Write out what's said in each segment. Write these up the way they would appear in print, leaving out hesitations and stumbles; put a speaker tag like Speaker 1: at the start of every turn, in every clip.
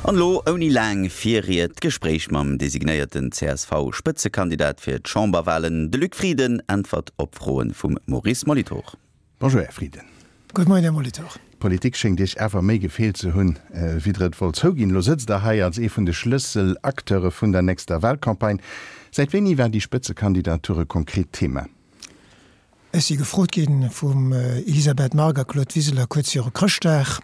Speaker 1: An elo ouni laang Virried d'Gespréich mam designéierten CSV-Spëtzekandidat fir d'Chamberwalen, de Luc Frieden äntwert op Froen vum Maurice Molitor.
Speaker 2: Bonjour Här Frieden.
Speaker 3: Gutt Moien Här Molitor.
Speaker 2: D'Politik schéngt Iech awer méi gefeelt ze hunn, wéi Der et wollt zouginn. Elo sëtzt Der hei als ee vun de Schlësselacteure vun der nächster Walcampagne. Säit wéini war déi Spëtzekandidatur e konkret Thema?
Speaker 3: Ech si gefrot gi vum Elisabeth Margue a Claude Wiseler kuerz viru Chrëschtdag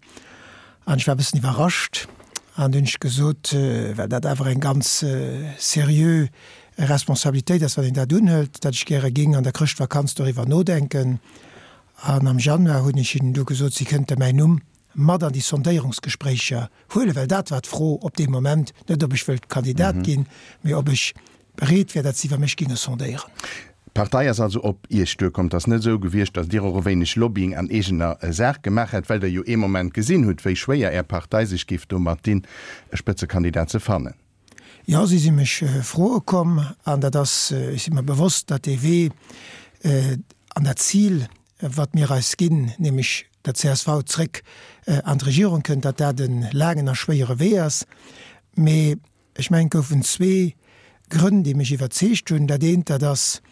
Speaker 3: an ech war e bëssen iwwerrascht an dunn hunn ech gesot, well dat awer eng ganz seriö Responsabilitéit ass, wann een dat unhëlt, datt ech gäre géing an der Chrëschtvakanz doriwwer nodenken. An am Januar hunn ech hinnen du gesot, si kënnte mäin Numm mat an déi Sondéierungsgespréicher huelen, well dat war d'Fro op deem Moment, net ob ech wëllt Kandidat ginn, mee ob ech bereet wär, datt si iwwer mech géinge sondéieren.
Speaker 2: D'Partei ass also op Iech duerkomm. Et ass net esou gewiescht, datt Dir och e wéineg Lobbying an eegener Saach gemaach hätt, well Der jo ee Moment gesinn hutt, wéi schwéier Är Partei sech géif domat dinn, e Spëtzekandidat ze fannen.
Speaker 3: Jo, si si mech froe komm an dat ass, ech si mer bewosst, datt dee Wee an dat Zil, wat mir eis ginn, nämlech datt csv zréck an d'Regierung kënnt, datt dat e laangen a schwéiere Wee ass. Mee ech mengen, et goufen zwee Grënn, déi mech iwwerzeegt hunn. Dat eent, dat ass,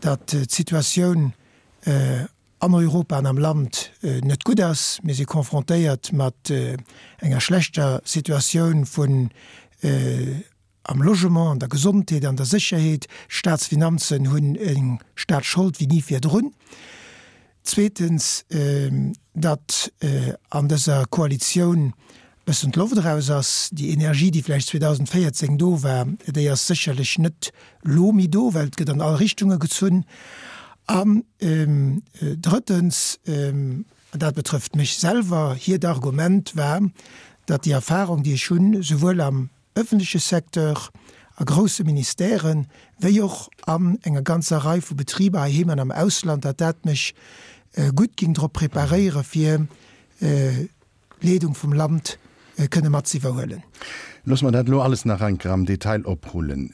Speaker 3: datt d'Situatioun an Europa an am Land net gutt ass. Mir si confrontéiert mat enger schlechter Situatioun vun am Logement, an der Gesondheet, an der Sécherheet. D'Staatsfinanzen hunn eng Staatsschold wéi ni virdrun. Zweetens, datt an dëser Koalitioun bëssen d'Loft eraus ass. Déi Energie, déi vläicht 2014 do war, déi ass sécherlech net lo méi do, well et gëtt an all Richtunge gezunn. An drëttens, an dat betrëfft mech selwer, hiert Argument war, datt déi Erfahrung, déi ech hunn, souwuel am ëffentleche Secteur, a grousse Ministèren, wéi och an enger ganzer Rei vu Betriber heiheem an am Ausland, datt dat mech gutt géing drop preparéiere fir d'Leedung vum Land kënne mat ze iwwerhuelen.
Speaker 2: Loosse mer dat elo alles nach eng Kéier am Detail oprullen.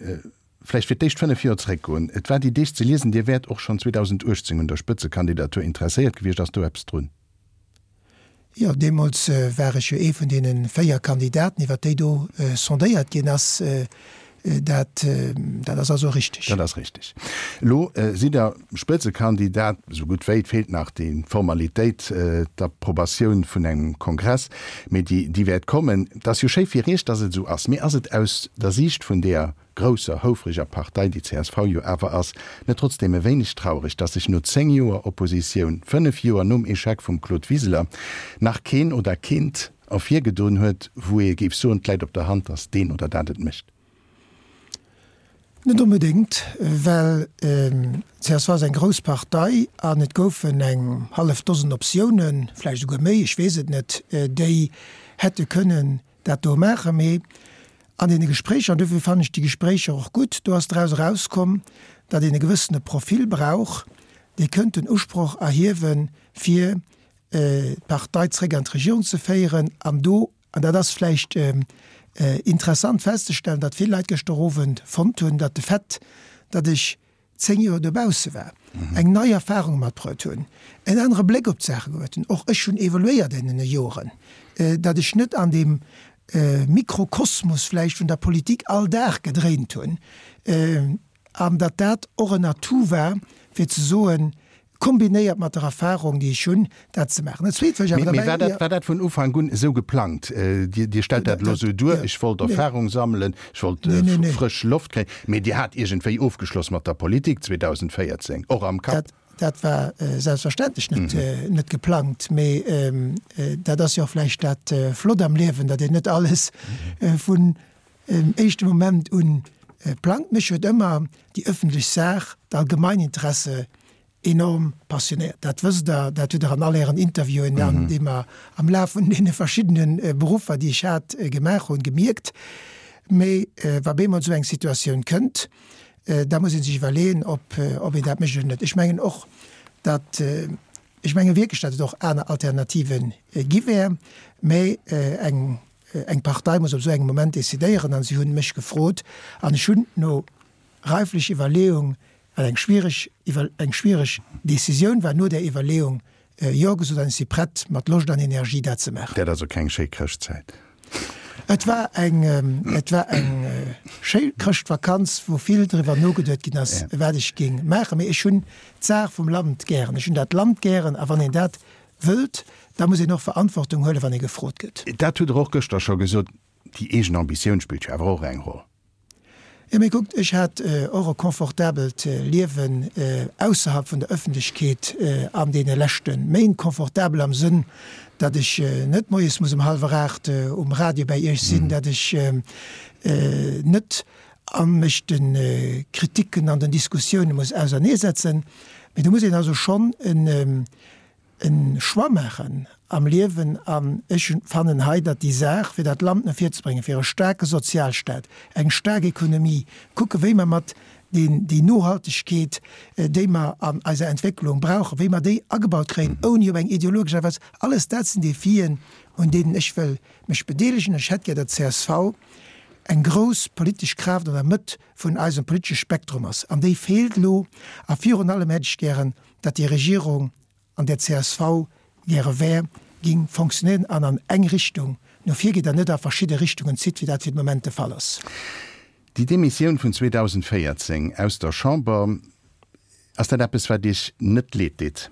Speaker 2: Vläicht fir d'éischt 5 Joer zréckgoen. Et war déi Deeg ze liesen, Dir wäert och schonn 2018 un der Spëtzekandidatur interesséiert gewiescht. Ass do eppes drun?
Speaker 3: Jo, deemools war ech jo ee vun deene 4 Kandidaten, iwwer déi do sondéiert ginn ass. Dat, dat ass also richteg.
Speaker 2: Dat ass richteg. Elo sidd Der Spëtzekandidat, esou gutt wéi. Et feelt nach déi Formalitéit, d'Approbatioun vun engem Kongress, mee déi, déi wäert kommen. Et ass jo schéi fir Iech, datt et esou ass, mee ass et aus der Siicht vun deeër grousser, houfreger Partei, déi csv jo awer ass, net trotzdeem e wéineg traureg, datt sech no 10 Joer Oppositioun, 5 Joer nom Echec vum Claude Wiseler, nach keen oder keent ervirgedoen huet, wou ee géif soen, 't läit op der Hand, datt deen oder dat et mécht?
Speaker 3: Net onbedéngt, well csv ass eng grouss Partei an et goufen eng hallef Dosen Optiounen, vläicht esouguer méi, ech weess et net, déi hätte kënnen dat do maachen, mee an deene Gespréicher, an dofir fannen ech déi Gespréicher och gutt, do ass draus erauskomm, datt een e gewëssene Profil brauch, dee kënnt den Usproch erhiewen, fir d'Partei zréck an d'Regierung ze féieren. An do, an dat ass vläicht interessant festzestellen, datt vill Leit gëschter Owend fonnt hunn, datt de Fait, datt ech 10 Joer dobausse war, eng nei Erfahrung matbruet hunn, en anere Bléck op d'Saache gehuet hunn. Och ech hunn evoluéiert an deene Joren, datt ech net an deem Mikrokosmos vläicht vun der Politik all Dag gedréint hunn an datt dat och en Atout war, fir ze soen, kombinéiert mat der Erfahrung, déi ech hunn, dat ze maachen. Dat Zweet, wat ech awer
Speaker 2: derbäi. Mee war dat, war dat vun Ufank un esou geplangt? Dir, Dir stellt dat elo esou duer, ech wollt Erfahrung sammelen, ech wollt frësch Loft kréien. Mee Dir hat iergendwéi ofgeschloss mat der Politik 2014, och am Kapp?
Speaker 3: Dat, dat war selbstverständlech net, net geplangt. Mee dat ass jo och vläicht dat Flott am Liewen, datt een net alles vun éischte Moment un plangt. Mech huet ëmmer déi ëffentlech Saach, d'Allgemeininteresse enorm passionéiert. Dat wësst Der, dat hutt Der an all Ären Interviewen, an déi mer am Laf vun deene verschiddene Beruffer, déi ech hat, gemaach hunn, gemierkt. Mee wa bemol esou eng Situatioun kënnt, da muss ee sech iwwerleeën, ob een dat mécht oder net. Ech mengen och, datt, ech menge wierklech, datt et och aner Alternative gi wär, mä eng Eng Partei muss op esou engem Moment decidéieren an si hunn mech gefrot an ech hunn no reiflech Iwwerleeung, wat eng schwiereg Iwwer eng schwiereg Decisioun war, no där Iwwerleeung Jo gesot an ech si prett mat Loscht an Energie dat ze maachen.
Speaker 2: Dat ass also keng schéi Chrëschtzäit.
Speaker 3: Et war eng, et war eng schéi Chrëschtvakanz, wou vill driwwer nogeduet ginn ass, wat ech géing maachen. Mee ech hunn d'Saach vum Land gären, ech hunn dat Land gären a wann een dat wëllt, da muss een och Verantwortung huelen, wann ee gefrot gëtt.
Speaker 2: Dat hutt Der och gëschter scho gesot, déi eegen Ambitioun spillt jo awer och eng Roll.
Speaker 3: Jo, mee kuckt, ech hat och e confortabelt Liewen ausserhalb vun der Ëffentlechkeet an deene leschte Méint. Confortabel am Sënn, datt ech net moies muss um hallwer 8 um Radio bäi Iech sinn, datt ech net a mech de Kriticken an den Diskussioune muss auserneesetzen. Mee do muss een also schonn en e Choix maachen am Liewen an ech fannen hei, datt déi Saach, fir dat Land no vir ze bréngen, fir e staarke Sozialstaat, eng staark Ekonomie, kucke wéi mer mat deen, déi Nohaltegkeet, déi mer an eiser Entwécklung brauchen, wéi mer déi agebaut kréien, ouni op eng ideologesch Aart a Weis, alles dat sinn Defien, un deenen ech wëll mech bedeelegen. Ech hätt gär, datt csv eng grouss politesch Kraaft an der Mëtt vun eisem politesche Spektrum ass, an déi feelt elo. A virun allem hätt ech gären, datt déi Regierung, an där csv gäre wär, ging fonctionnéieren an an eng Richtung no vir geet an net a verschidde Richtungen zitt, wéi dat fir de Moment de Fall ass.
Speaker 2: Déi Demissioun vun 2014 aus der Chamber, ass dat eppes, wat Iech net leed deet?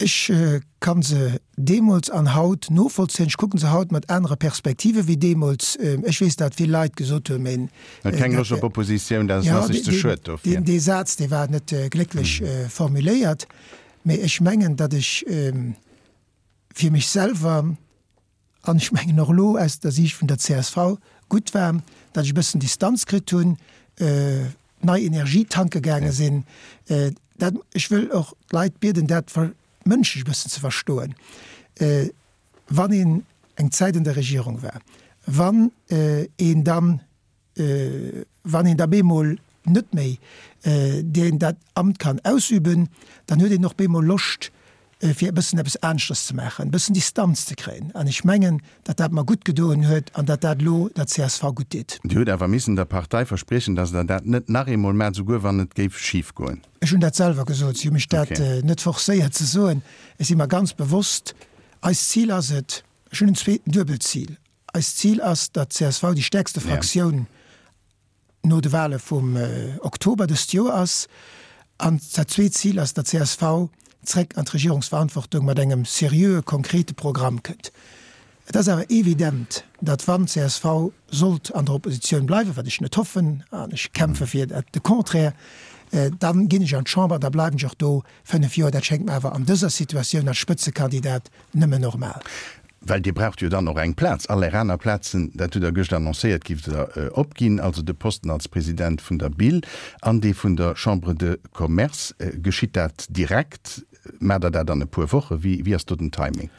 Speaker 3: Ech kann se deemools an haut novollzéien. Ech kucken se haut mat anere Perspektive wéi deemools. Ech weess, datt vill Leit gesot hunn, mee
Speaker 2: Huet keng Loscht op Oppositioun, dat ass sech ze schued
Speaker 3: dofir. Dee Saz, dee war net glécklech formuléiert. Mee ech mengen, datt ech fir mech selwer, an ech mengen och elo aus der Siicht vun der csv, gutt war, datt ech e bëssen Distanz kritt hunn, nei Energie tanke gaange sinn. Dat, ech wëll och d'Leit bieden, dat mënschlech e bëssen ze verstoen. Wann een eng Zäit an der Regierung war, wann een dann Wann een da bemol net méi deen dat Amt kann ausüben, dann huet een och bemol Loscht, fir e bëssen eppes aneschters ze maachen, e bëssen Distanz ze kréien. An ech mengen, datt dat mer gutt gedoen huet an datt dat elo der csv gutt deet.
Speaker 2: Dir hutt awer missen der Partei verspriechen, datt Der dat net nach eemol maacht, souguer wann et géif schif goen.
Speaker 3: Ech hunn dat selwer gesot. Si hu mech dat net forcéiert ze soen. Ech si mer ganz bewosst, eist Zil ass et, ech hunn en zweeten duebelt Zil, Eist Zil ass, datt csv déi stäerkste Fraktioun no de Wale vum Oktober dëst Joer ass. An dat zweet Zil ass, datt csv zréck an d'Regierungsverantwortung mat engem seriöe, konkrete Programm kënnt. Et ass awer evident, datt wann csv sollt an der Oppositioun bleiwen, wat ech net hoffen, an ech kämpfe fir dat de Contraire, dann ginn ech an d'Chamber an da bleiwen ech och do 5 Joer. Dat schéngt mer awer an dëser Situatioun als Spëtzekandidat nëmmen normal.
Speaker 2: Well Dir braucht jo dann och eng Plaz. All Är aner Plazen, dat hutt Der gëscht annoncéiert, giff Der opginn, also de Posten als President vun der BIL an dee vun der Chambre de Commerce. Geschitt dat direkt? Maacht Der dat an e puer Wochen? Wéi ass do den Timing?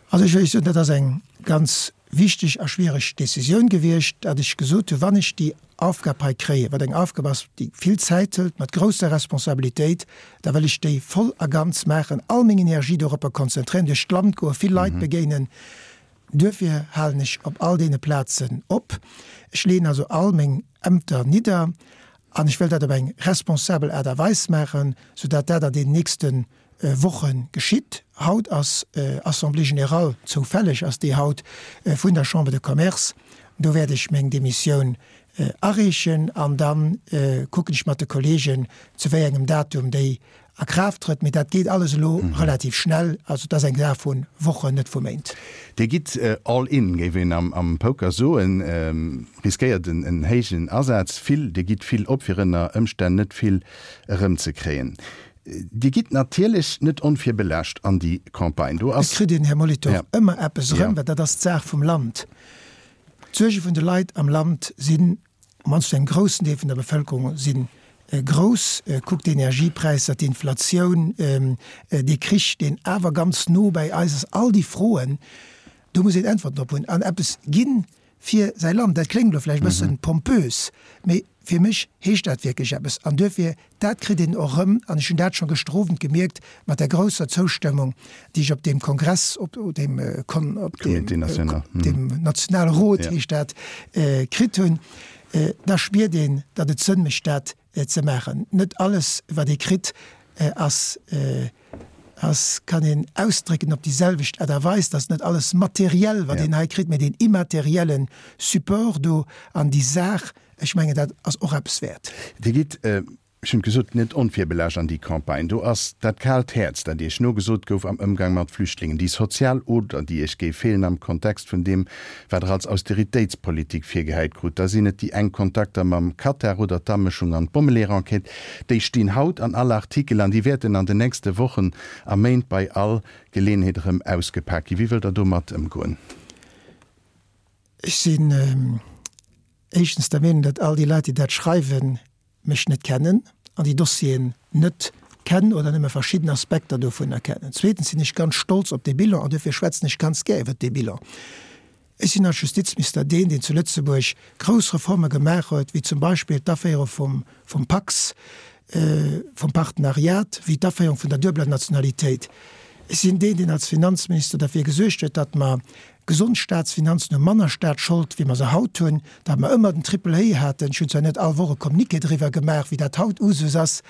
Speaker 3: Also ech wëll Iech soen, dat ass eng ganz wichteg a schwiereg Décisioun gewiescht, datt ech gesot hunn, wann ech déi Aufgab hei kréien, wat eng Aufgab ass, déi vill Zäit hëlt, mat grousser Responsabilitéit, da wëll ech déi voll a ganz maachen, all meng Energie doropper konzentréieren, duerch d'Land goen, vill Leit begéinen. Duerfir halen ech op all deene Plazen op. Ech leeën also all meng Ämter nidder an ech wëll dat op eng responsabel Aart a Weis maachen, soudatt dat an deenen nächste Woche geschitt. Haut ass Assemblée générale, zoufälleg ass déi haut, vun der Chambre de Commerce. Do wäert ech meng Demissioun areechen an da kucken ech mat de Kollegen, zu wéi engem Datum déi a Kraaft trëtt. Mee dat geet alles elo relativ schnell. Also et ass eng Saach vu Wochen, net vu Méint.
Speaker 2: Dir gitt all in, géif een am Poker soen, riskéiert en héijen Asaz, vill, Dir gitt vill op, fir ënner Ëmstänn net vill erëmzekréien. Dir gitt natierlech net onvirbelaascht an déi Campagne. Do
Speaker 3: ass. Et kritt een, Här Molitor, ëmmer eppes erëm, well dat ass d'Saach vum Land. D'Suerge vun de Leit am Land sinn, op mannst zu engem groussen Deel vun der Bevëlkerung, si grouss. Kuckt d'Energiepräisser, d'Inflatioun, dee Krich, deen awer ganz no bäi eis ass, all déi Froen, do muss een Äntwerten drop hunn an eppes ginn fir säi Land. Dat kléngt elo vläicht e bëssen pompös, mee fir mech heescht dat wierklech eppes. An duerfir, dat kritt een och erëm, an ech hunn dat scho gëschter Owend gemierkt mat der grousser Zoustëmmung, déi ech op deem Kongress, op deem Kon, op deem, deem nationale Rot heescht dat, kritt hunn, da spiert een, datt et Sënn mécht, dat ze maachen. Net alles, wat ee kritt, ass. Ass, kann een ausdrécken op déi selwecht Aart a Weis, dass net alles materiell, wat een hei kritt, mä deen immaterielle Support do an déi Saach, ech mengen, dat ass och eppes wäert.
Speaker 2: Dir gitt, ech hunn et gesot, net onvirbelaascht an déi Campagne. Do ass dat kaalt Häerz, dat Iech nogesot gouf am Ëmgang mat Flüchtlingen, déi sozial Oder, déi Iech géif feelen am Kontext vun deem, wat Der als Austeritéitspolitik virgehäit krut. Da sinn et déi enk Kontakter mam Katar oder d'Amëschung an d'Bommeleeër-Enquête. Déi stinn haut an all Artikel an déi wäerten an den nächste Wochen a Méint bei all Geleeënheet erëm ausgepak ginn. Wéi wëllt Der domat ëmgoen?
Speaker 3: Ech sinn éischtens der Meenung, datt all déi Leit, déi dat schreiwen, mech net kennen an déi Dossieren net kennen oder nëmme verschidden Aspekter dovunner kennen. Zweetens sinn ech ganz stolz op dee Bilan an duerfir schwätzen ech ganz gär iwwert dee Bilan. Ech sinn als Justizminister deen, deen zu Lëtzebuerg grouss Reforme gemaach huet, wéi zum Beispill d'Aféierung vum vum Pacs, vum Partenariat, wéi d'Aféierung vun der duebeler Nationalitéit. Ech sinn deen, deen als Finanzminister derfir gesuergt huet, datt mer gesond Staatsfinanzen hunn, manner Staatsschold, wéi mer se haut hunn, datt mer ëmmer den Triple A haten. Ech hunn zwar net all Woch e Communiqué driwwer gemaach, wéi dat haut Usus ass.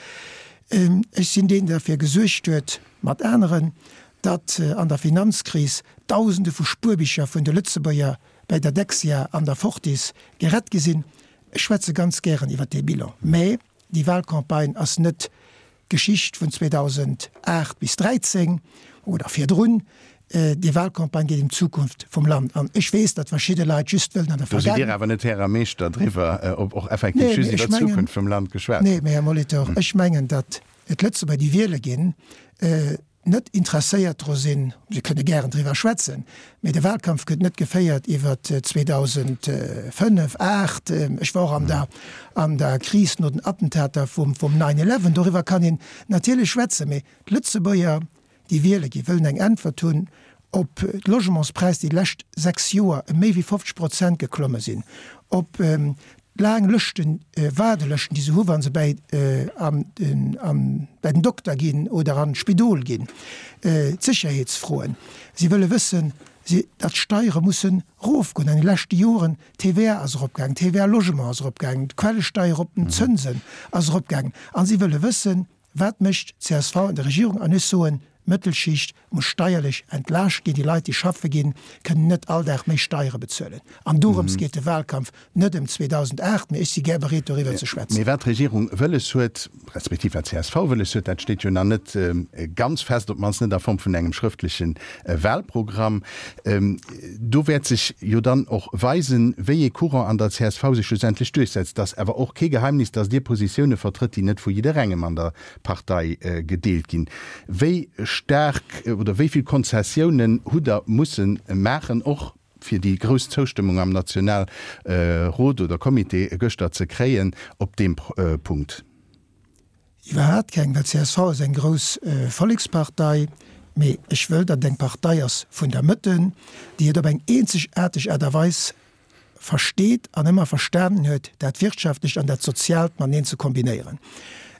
Speaker 3: Ech sinn deen, deen derfir gesuergt huet, mat aneren, datt an der Finanzkris Dausende vu Spuerbicher vun de Lëtzebuerger bäi der Dexia an der Fortis gerett gi sinn. Ech schwätze ganz gären iwwer dee Bilan, mä déi Wahlcampagne ass net d'Geschicht vun 2008 bis 13 oder virdrun. Déi Wahlcampagne geet ëm d'Zukunft vum Land. An ech weess, datt verschidde Leit just wëllen an der
Speaker 2: Do sidd Dir awer net Här a Meeschter driwwer, ob och effektiv just iwwer d'Zukunft vum Land geschwat
Speaker 3: gëtt. Nee, mä Här Molitor, ech mengen, datt d'Lëtzebuerger, déi wiele ginn, net interesséiert dru sinn, se kënne gären driwwer schwätzen, mee de Wahlkampf gëtt net geféiert iwwer 2005, 8, ech war och an der an der Kris no den Attentater vum vum Nine Eleven, doriwwer kann een natierlech schwätzen, mee d'Lëtzebuerger, déi wiele ginn, wëllen eng Äntwert hunn op d'Logementspräis, déi d'lescht 6 Joer ëm méi wéi 50 Prozent geklomme sinn, op Laang Lëschten, Waardelëschten, déi se hu wa se bäi an den an bäi den Dokter ginn oder an d'Spidol ginn, d'Sécherheetsfroen. Si wëlle wëssen, si datt d'Steiere mussen erofgoen. An de leschte Joren, d'TVA ass eropgaangen, d'TVA Logement ass eropgaangen, d'Quellesteier op den Zënsen ass eropgaangen. A si wëlle wëssen, Wat mécht csv an der Regierung? An ech soen, d'Mëttelschicht muss steierlech entlaascht ginn. Déi Leit, déi schaffe ginn, kënnen net all Dag méi Steiere bezuelen. An dorëms geet de Wahlkampf, net ëm 2008, mee ech si gär bereet, doriwwer ze schwätzen.
Speaker 2: Mee wat d'Regierung wëlles huet, respektiv wat csv wëlles huet, dat steet jo nach net ganz fest, op d'mannst net a Form vun engem schrëftleche Wahlprogramm. Do wäert sech jo dann och weisen, wéi ee Courant an der csv sech schlussendlech duerchsetzt. Et ass awer och kee Geheimnis, datt Dir Positioune vertrëtt, déi net vu jidderengem an der Partei gedeelt ginn. Wéi staark oder wéi vill Konzessiounen hutt Der musse maachen, och fir déi grouss Zoustëmmung am Nationalrot oder Comité gëschter ze kréien op deem Punkt?
Speaker 3: Iwwerhaat keng, well csv ass eng grouss Vollekspartei, mee ech wëll, datt et eng Partei ass vun der Mëtte, déi et op eng eenzegaarteg Aart a Weis versteet an ëmmer verstanen huet, dat Wirtschaftlecht an dat Soziaalt mateneen ze kombinéieren.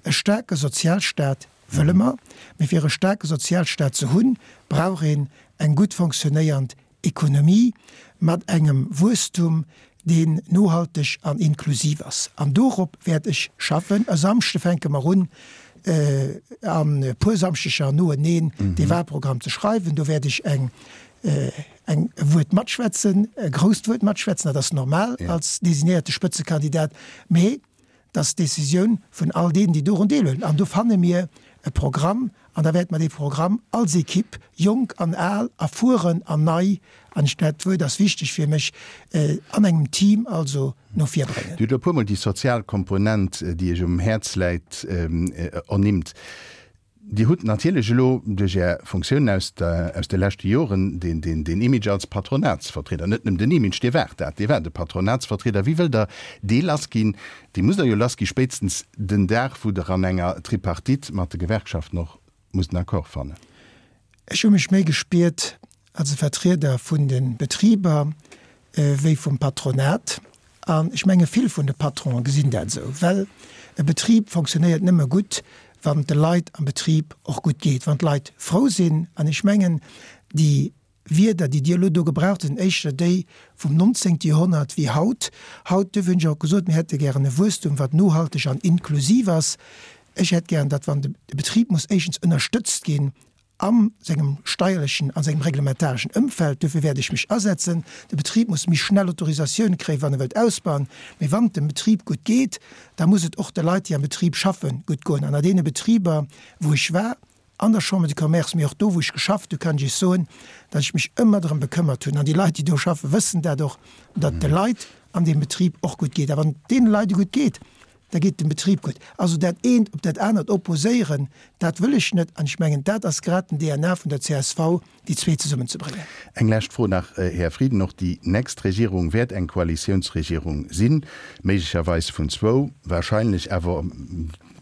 Speaker 3: E staarke Sozialstaat wëlle mer, mee fir e staarke Sozialstaat ze hunn, brauch een eng gutt fonctionnéiernd Ekonomie mat engem Wuesstum, deen nohalteg an inklusiv ass. An dorop wäert ech schaffen. E Samschde fänke mer un, an e puer Samschdeger noeneen dee Wahlprogramm ze schreiwen. Do wäert ech eng eng e Wuert matschwätzen, e grousst Wuert matschwätzen, dat ass normal als designéierte Spëtzekandidat. Mee Dat ass d'Decisioun vun all deenen, déi dorun deelhuelen. An do fanne mir e Programm an da wäerte mer dee Programm als Equipe, jonk an al, erfueren an nei, an ech, dat Wuert ass wichteg fir mech, an engem Team also no vir bréngen.
Speaker 2: Dir hutt elo e puermol déi sozial Komponent, déi Iech um Häerz läit, ernimmt. Dir hutt natierlech elo duerch Är Funktiounen aus aus de leschte Joren deen deen deen Image als Patronatsvertrieder, net nëmmen den Image, Dir waart dat, Dir waart e Patronatsvertrieder. Wéi wëllt Der dee lassginn? Dee musst Der jo lassgi spéitstens den Dag, wou Der an enger Tripartite mat de Gewerkschaften och musst en Accord fannen.
Speaker 3: Ech hu mech méi gespiert als e Vertrieder vun de Betriber wéi vum Patronat. An ech menge vill vun de Patronen gesinn dat esou, well e Betrib fonctionnéiert nëmme gutt, wann et de Leit am Betrib och gutt geet, wann d'Leit frou sinn. An ech mengen, déi Wierder, déi Dir elo do gebraucht hutt, sinn éischter déi vum 19. Joerhonnert wéi haut. Haut, duerfir hunn ech och gesot, mir hätte gären e Wuesstum, wat nohalteg an inklusiv ass. Ech hätt gären, datt wann de Betrib muss éischtens ënnerstëtzt ginn. A sengem steierlechen, a sengem reglementareschen Ëmfeld. Dofir wäert ech mech asetzen. De Betrib muss méi schnell Autorisatioune kréien, wann e wëllt ausbauen. Mee wann et dem Betrib gutt geet, da muss et och de Leit, déi am Betrib schaffen, gutt goen. An a deene Betriber, wou ech war, an der Chambre de Commerce, mee och do, wou ech geschafft hunn, kann ech Iech soen, datt ech mech ëmmer drëm bekëmmert hunn, an déi Leit, déi do schaffen, wëssen dat och, datt de Leit an deem Betrib och gutt geet. A wann et deene Leit gutt geet, da geet dem Betrib gutt. Also dat eent op dat anert opposéieren, dat wëll ech net. An ech mengen, dat ass grad den DNA vun der csv, déi zwee zesummenzebréngen.
Speaker 2: Eng lescht Fro nach, Här Frieden, Och déi nächst Regierung wäert eng Koalitiounsregierung sinn, méiglecherweis vun zwou, wahrscheinlech awer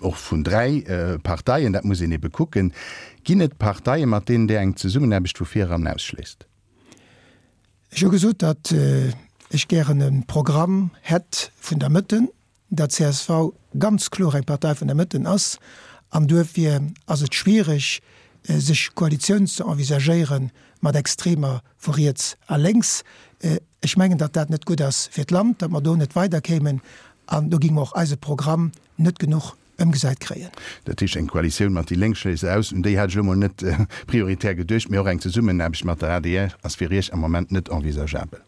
Speaker 2: och vun dräi Parteien, dat muss een ebe kucken. Ginn et Parteien, mat deenen Dir eng Zesummenaarbecht vu vireran ausschléisst?
Speaker 3: Ech hu gesot, datt ech gären e Programm hätt vun der Mëtte, datt csv ganz kloer eng Partei vun der Mëtten ass an duerfir ass et schwiereg, sech Koalitioun ze envisagéiere mat Extremer vu riets a lénks. Ech mengen, datt dat net gutt ass fir d'Land, datt mer do net weiderkéimen an do géinge mer och eise Programm net genuch ëmgesat kréien.
Speaker 2: Dat heescht, eng Koalitioun mat déi Lénk schléisst Der aus. Un déi hat ech elo mol net prioritär geduecht, mee och eng Zesummenaarbecht mat der adr ass fir Iech am Moment net envisageabel.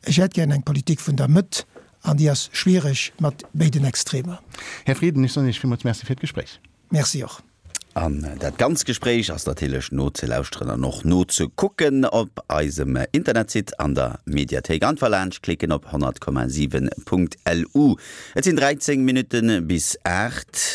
Speaker 3: Ech hätt gären eng Politik vun der Mëtt an déi ass schwiereg mat béiden Extremer.
Speaker 2: Här Frieden, ech soen Iech villmools Merci fir d'Gespréich.
Speaker 3: Merci och.
Speaker 1: An dat ganzt Gespréich ass natierlech nozelauschteren an och nozekucken op eisem Internetsite an der Mediathéik. Einfach laanscht klicken op 100,7.lu. Et sinn 13 Minutte bis 8.